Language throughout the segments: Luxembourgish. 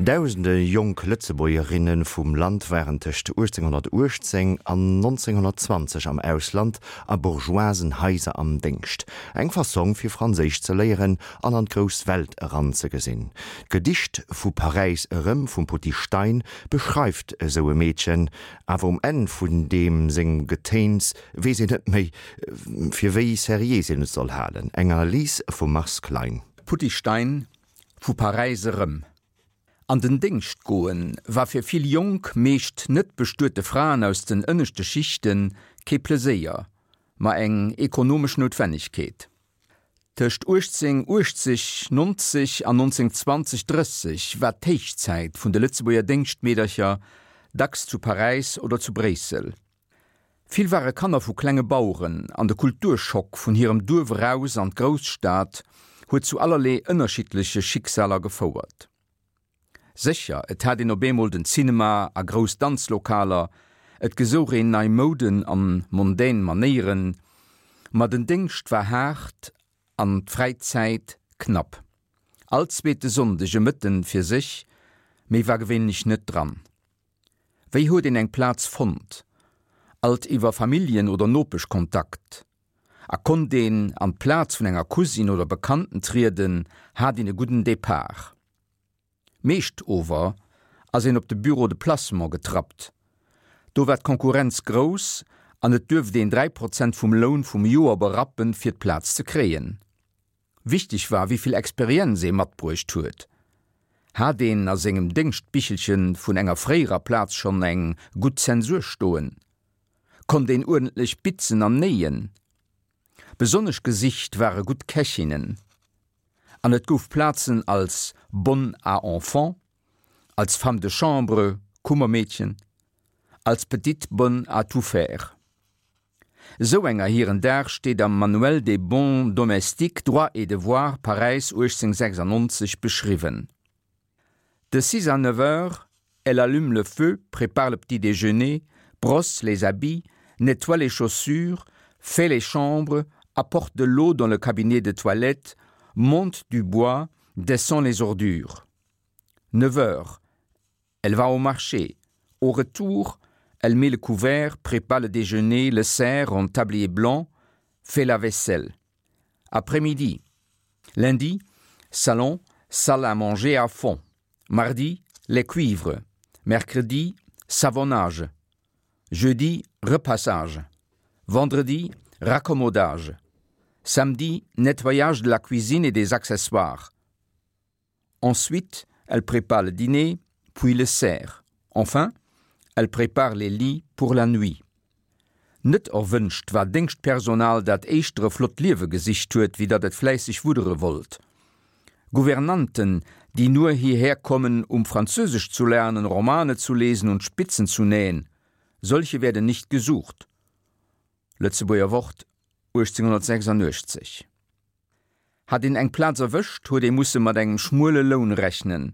Dausende jonk Lëtzebuergerinne vum Land waren tëscht 1818 an 1920 am Ausland a bourgeoisen Haiser am Déngscht. Eng Fassong fir Franséisch ze léieren an an d'grouss Welt eranzegesinn. D'Gedicht Vu Paräis erëm vum Potti Stein beschreift esou e Meedchen, awer um Enn vun deem sengem Getéins weess een net méi, fir wéi seriés een et soll halen. Eng Analys vum Mars Klein. Potti Stein, Vu Paräis erëm. An den Déngscht goen war fir vill jonk, meescht net bestuete Fraen aus den ënneschte Schichten kee Pleséier, ma eng ekonomesch Noutwennegkeet. Tëscht 1880, 90 an 1920, 30 war d'Héichzäit vun de Lëtzebuerger Déngschtmeedercher, dacks zu Paräis oder zu Bréissel. Vill ware Kanner vu klenge Baueren an de Kulturschock vun hirem Duerf eraus an d'Grousstad huet zu allerlee ënnerschiddleche Schicksaler gefouert. Sécher, et hat een op eemol den Cinema a grouss Danzlokaler, et gesouch een nei Mouden an mondän Manéieren, ma den Déngscht war haart an d'Fräizäit knapp. All zweete Sonndeg e Mëtten fir sech, méi war gewéinlech net dran. Wéi huet een eng Plaz fonnt? Alt iwwer Familljen oder Nopeschkontakt. A konnt een an d'Plaz vun enger Cousine oder Bekannten trieden, hat een e gudden Depart. Meescht ower ass een op de Bureau de placement getrappt. Do war d'Konkurrenz grouss an et duerft een 3 Prozent vum Loun vum Joer berappen, fir d'Plaz ze kréien. Wichteg war, wéi vill Experienz ee matbruecht huet. Hat een a sengem Déngschtbichelche vun enger fréierer Plaz schonn eng gutt Zensur stoen? Konnt een uerdentlech bitzen an néien? Besonnesch gesicht ware gutt Kächinnen. An et gouf Plazen als Bonne à enfants, als Femme de chambre, Kummermeedchen, als Petite bonne à tout faire. Esou enger hiren Dag steet am Manuel des bons domestiques, droits et devoirs, Paräis 1896, beschriwwen. De six à neuf heures, elle allume le feu, prépare le petit déjeuner, brosse les habits, nettoie les chaussures, fait les chambres, apporte de l'eau dans le cabinet de toilette, monte du bois, descend les ordures. Neuf heures, Elle va au marché. Au retour, elle met le couvert, prépare le déjeuner, le sert en tablier blanc, fait la vaisselle. Après-midi. Lundi, salon, salle à manger à fond. Mardi, les cuivres. Mercredi, savonnage. Jeudi, repassage. Vendredi, raccommodage. Samedi, nettoyage de la cuisine et des accessoires. Ensuite, elle prépare le dîner, puis le sert. Enfin, elle prépare les lits pour la nuit. Net erwënscht war Déngschtpersonal, dat éischter e flott Liewe gesicht huet, wéi datt et fläisseg wuddere wollt. Gouvernanten, die nur hierher kommen, um Französisch zu lernen, Romane zu lesen und Spitzen zu nähen, solche werden nicht gesucht. Lëtzebuerger Wort, 1886. Hat een eng Plaz erwëscht, huet ee musse mat engem schmuele Loun rechnen.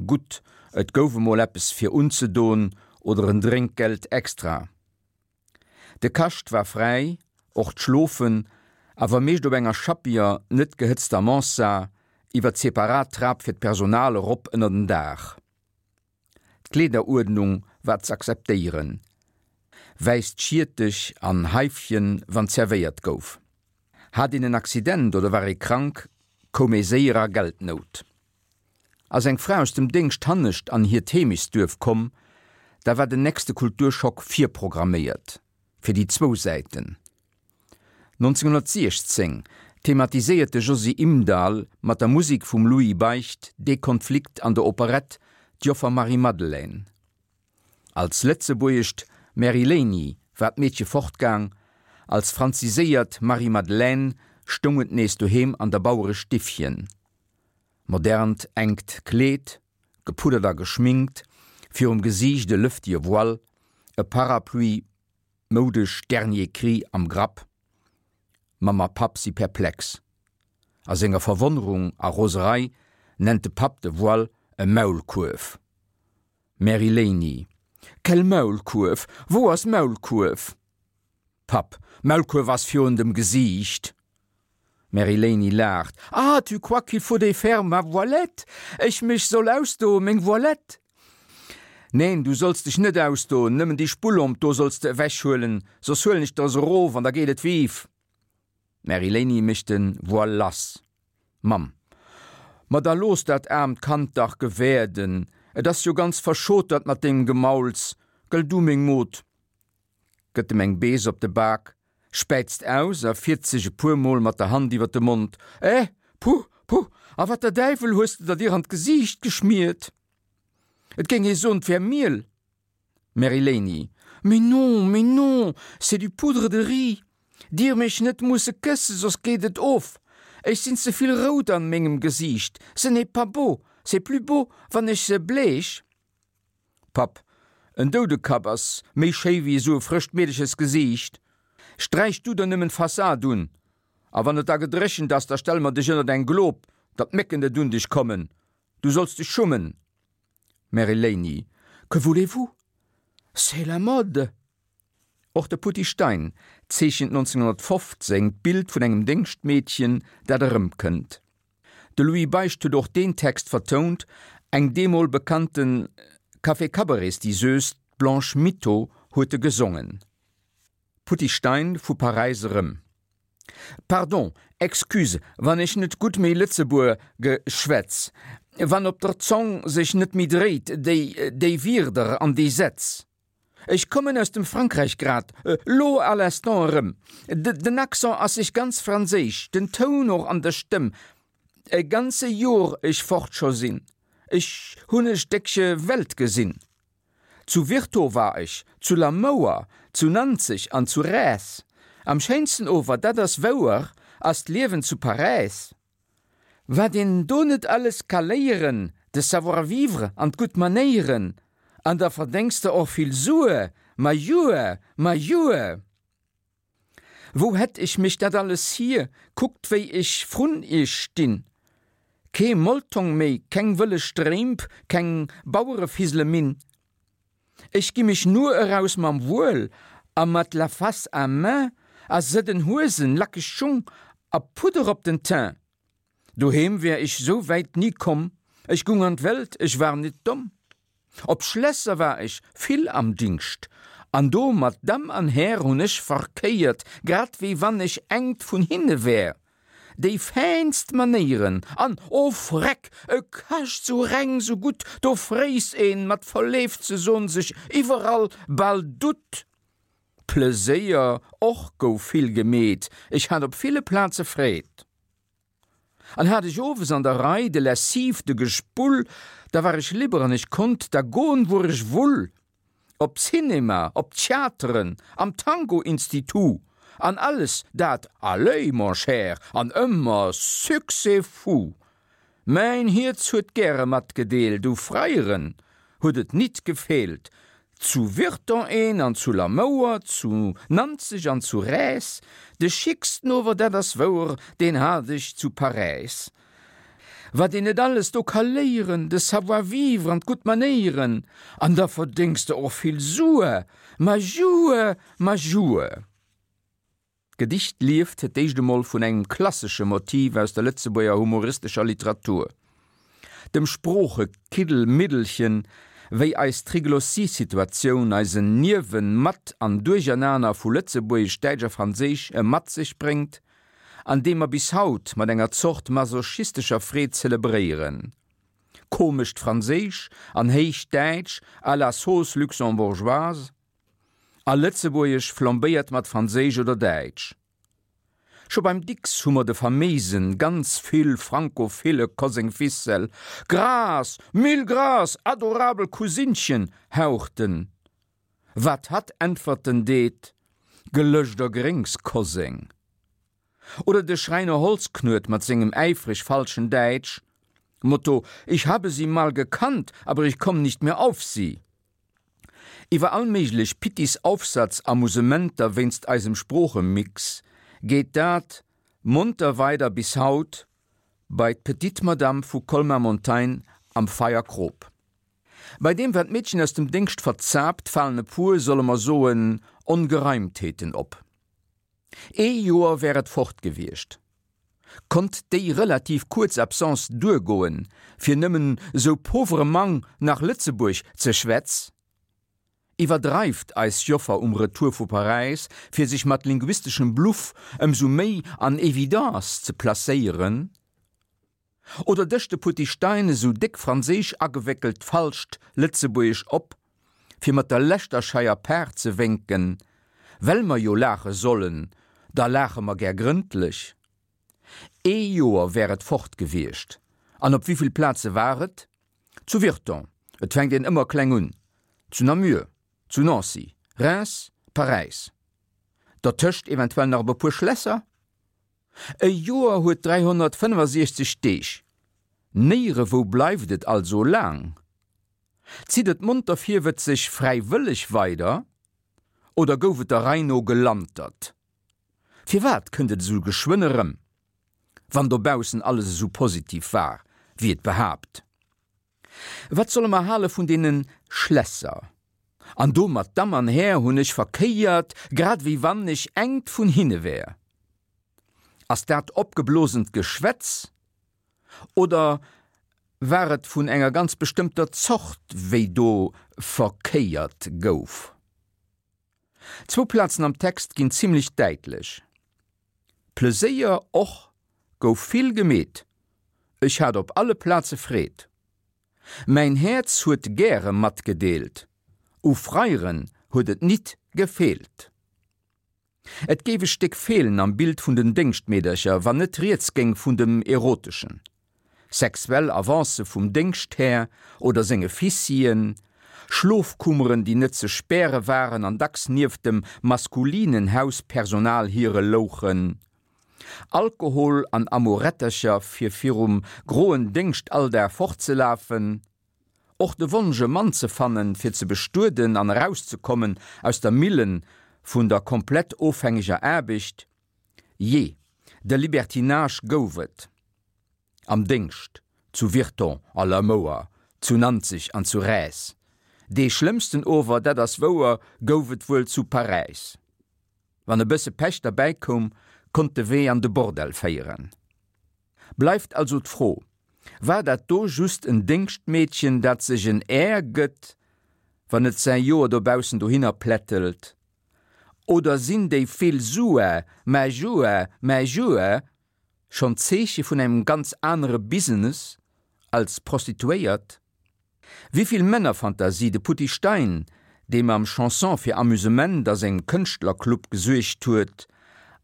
Gutt, et gouf emol eppes fir unzedon oder en Drénkgeld extra. De Kascht war fräi, och d'Schlofen, awer meescht op enger schappiger, net gehëtzter Mansard, iwwer d'separat Trap fir d'Personal erop ënner den Daach. D'Kleederuerdnung war z'akzeptéieren, wäisst Schiertech an Haifchen wann zerwéiert gouf. Hat een en Accident oder war ee krank, koum ee séier a Geldnout. Ass eng Fra aus dem Déngscht hannescht an hiert Heemechtsduerf komm, da war den nächste Kulturschock virprogramméiert, fir déi zwou Säiten. 1916 thematiséiert de Josy Imdahl mat der Musik vum Louis Beicht dee Konflikt an der Operett D'Joffer Marie-Madeleine. Als lëtzebuergescht Mary Léini war d'Meedche fortgaang, als franziséiert Marie-Madeleine stoung et nees doheem an der Bauerestiffchen. Modernt enkt Kleed, gepuddert a geschminkt, virum Gesiicht e lëftige Voile, e Parapluie, Moudesch Dernier Cri am Grapp. Mamm a Papp si perplex. A senger Verwonnerung a Roserei nennt de Papp de Voile e Maulkuerf. Mary Léini, Quel Maulkuerf? Wou ass Maulkuerf? Papp, Maulkuerf ass virun dem Gesiicht. D'Mary-Léini laacht, Ah, tu crois qu'il faut défaire ma voilette? Ech mech soll ausdoen, meng Voilette? Neen, du solls dech net ausdoen, nëmmen déi Spullomp do solls de ewechhuelen, soss huelen ech der se erof an da geet et vive! D'Mary-Léini mécht de Voile lass. Mamm, Ma da looss dat aarmt Kand dach gewäerden, et ass jo ganz verschotert mat dengem Gemauls, gëll du, meng Mod? Gëtt em eng Bees op de Bak, späizt aus a fiert sech e puer Mol mat der Hand iwwer de Mond, Eh, puh, puh, a wat der Däiwel hues de der dir an d'Gesiicht geschmiert? Et géing ee soen, 't wär Miel. Mary-Léini, Mais non, mais non, c'est du poudre de riz. Dir mech net musse kësse, soss geet et of. Ech sinn ze vill rout an mengem Gesiicht, ce n'est pas beau, c'est plus beau, wann ech se bleech. Papp, En Doudekapp ass méi schéi wéi esou e frëscht Meedechersgesiicht. Sträich du der nëmmen d'Fassad un, a wann et da gedréchent ass, da stelle mer dech ënnert eng Glob, datt d'Mécken net un dech kommen. Du solls dech schummen. Mary-Léini, Que voulez-vous? C'est la mode! Och de Putty Stein zeechent 1915 d'Bild vun engem Déngschtmeedchen, dat erëmkënnt. De Louis Beicht huet och deen Text vertount, eng deemol bekannte Café-Cabarets-Diseuse, d'Blanche Mitto, huet e gesongen. Putty Stein vu Paräis erëm. Pardon, excuse, wann ech net gutt méi Lëtzebuer ge schwätz, wann op der Zong sech net méi dréit déi, déi Wierder an déi Sätz. Ech kommen aus dem Frankräich grad lo à l'instant erëm. Den Accent ass sech ganz franséisch, den Toun och an der Stëmm. E ganze Jor ech fort scho sinn, ech hunn e Stéckche Welt gesinn. Zu Virton war ech, zu Lamouer, zu Nanzeg an zu Räs. Am schéinsten ower, dat ass wouer, ass d'Liewen zu Paräis. Wat een do net alles ka léieren, de Savoir-vivre an d'gutt Manéieren, an da verdéngs de och vill Sue, ma jue, ma jue! Wou hätt ech mech dat alles hier, kuckt wéi ech vrun iech stinn, kee Moltong méi, keng wëlle Strémp, keng Bauerefisele-Minn. Ech gi mech nur eraus mam Wuel a mat la face à main a sëdden Huesen, lackeg Schung a Pudder op den Teint. Doheem wär ech sou wäit ni komm, ech gung an d'Welt, ech war nit domm. Op Schlässer war ech vill am Dingscht, an do mat Damm an Här hunn ech verkéiert, grad wéi wann ech engt vun hinne wär. Déi fäinst Manéieren an, o Freck, e Kascht sou reng, sou gutt, do fréiss een, mat verleeft ze son, sech iwwerall bal dutt. Pleséier och gouf vill gemeet, ech hat op ville Plaze Freed. An hat ech owes an der Rei de Lessive, de Gespull, da war ech libre an ech konnt da goen, wuer ech wull. Op d'Cinema, op d'Theateren, am Tango-Institut, an alles dat, allez, mon cher, an ëmmer Succès fou. Mäin Hierz huet gäre matgedeelt, u Freieren huet et nit gefeelt, Zu Virton een an zu Lamouer, zu Nanzeg an zu Räs, de schicksten ower, dat ass wouer, deen hat ech zu Paräis. Wat een net alles do ka léieren, de Savoir-vivre an d'gutt Manéieren, an da verdéngs de och vill Sue, ma jue, ma jue. D'Gedicht lieft fir d'éischt emol vun engem klassesche Motiv aus der Lëtzebuerger humoristescher Literatur, dem Sproochekiddelmiddelchen, wéi eis Triglossie-Situatioun, eisen Niewen-, Mat an Duerchernaner vu Lëtzebuergesch, Däitsch a Franséisch e mat sech bréngt, an dee mer bis haut mat enger Zort masochistescher Freed zelebréieren. Komescht Franséisch an héicht Däitsch à la sauce luxembourgeoise. A Lëtzebuergesch flambéiert mat Franséisch oder Däitsch. Scho beim Dicks hu mer de faméisen, ganz vill frankophile Koseng Fissel, Grâce, mille grâces, adorabel Cousinchen, haucht en. Wat hatt äntwerten deet, Gelëscht a Gréngs, Koseng. Oder de Schräiner Holzknuet mat sengem äifreg falschen Däitsch, Motto, Ich habe Sie mal gekannt, aber ich komm nicht mehr auf Sie. Iwwer all méiglech Pittis-Aufsatz-Amusementer wéinst eisem Sproochemix geet dat monter weider bis haut bei d'Petite Madame vu Colmar-Montagne am Feierkrop. Bei deem wat d'Meedchen aus dem Déngscht verzaapt, falen e puer, solle mer soen, Ongereimtheeten op. Ee Joer wär et fort gewiescht. Konnt déi relativ kuerz Absence duergoen, fir nëmmen sou pauvrement nach Lëtzebuerg ze schwätz? Iwwerdreift eis Joffer um Retour vu Paräis, fir sech mat linguisteschem Bluff ëmsou méi an Evidence ze placéieren? Oder dëscht de Putty Stein esou déck franséisch agewéckelt falscht Lëtzebuergesch op, fir mat der leschter scheier Paart ze wénken, Well mer jo laache sollen, da laache mer gär grëndlech. Ee Joer wär et fort gewiescht. An op wéivill Plaze war et? Zu Virton, et fänkt een ëmmer kleng un, zu Namur, zu Nancy, Reims, Paräis. Dertëscht eventuell nach op e puer Schlässer? E Joer huet 365 Deeg. Néierewou bleift et also laang. Zitt et monter virwëtzeg fräiwëlleg weider oder gouf et der Rei no gelantert? Firwat kënnt et esou geschwënn erëm, wann dobaussen alles esou positiv war, wéi et behaapt? Wat solle mer hale vun deene Schlässer? An do mat Damm an Här hunn ech verkéiert, grad wéi wann ech engt vun hinne wär. Ass dat opgeblosent Geschwätz oder war et vun enger ganz bestëmmter Zort, wéi do verkéiert gouf? Zwou Plazen am Text ginn zimlech däitlech. Pleséier och gouf vill gemeet, ech hat op alle Plaze Freed. Mäin Häerz huet gäre matgedeelt, u Freiren huet et nit gefeelt. Et géif e Stéck feelen am Bild vun den Déngschtmeedercher, wann net rieds géing vun dem Eroteschen. Sexuell Avancë vum Déngschthär oder senge Fissien, Schlofkummeren, déi net ze späre waren an dacks nieft dem maskulinen Hauspersonal hire louchen, Alkohol an Amorettercher fir virum groen Déngschtalldag fortzelafen, Och de Wonsch e Mann ze fannen, fir ze bestueden an erauszekommen aus der Millen vun der komplett ofhängeger Aarbecht, jee, de Libertinage gouf et am Déngscht, zu Virton a Lamouer, zu Nanzeg an zu Räs. Dee schlëmmsten ower, dat ass wouer, gouf et wuel zu Paräis. Wann e bësse Pech derbäi koum, konnt de Wee an de Bordell féieren. Bleift also d'Fro, War dat do just en Déngschtmeedchen, dat sech en Air gëtt, wann et säi Joer dobaussen dohinner plättelt? Oder sinn déi vill Sue, mä Jue, mä Jue schonn d'Zeeche vun engem ganz anere Business als Prostituéiert? Wivill Männerfantasie de Putty Stein, dee mam Chanson fir Amusement a sengem Kënschtlerclub gesuergt huet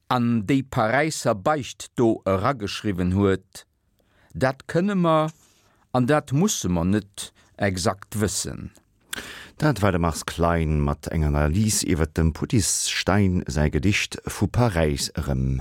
an déi Paräisser Beicht do erageschriwwen huet, dat kënne mer an dat musse mer net exakt wëssen. Dat war de Mars Klein mat enger Analys iwwer dem Putty Stein säi Gedicht Vu Paräis erëm.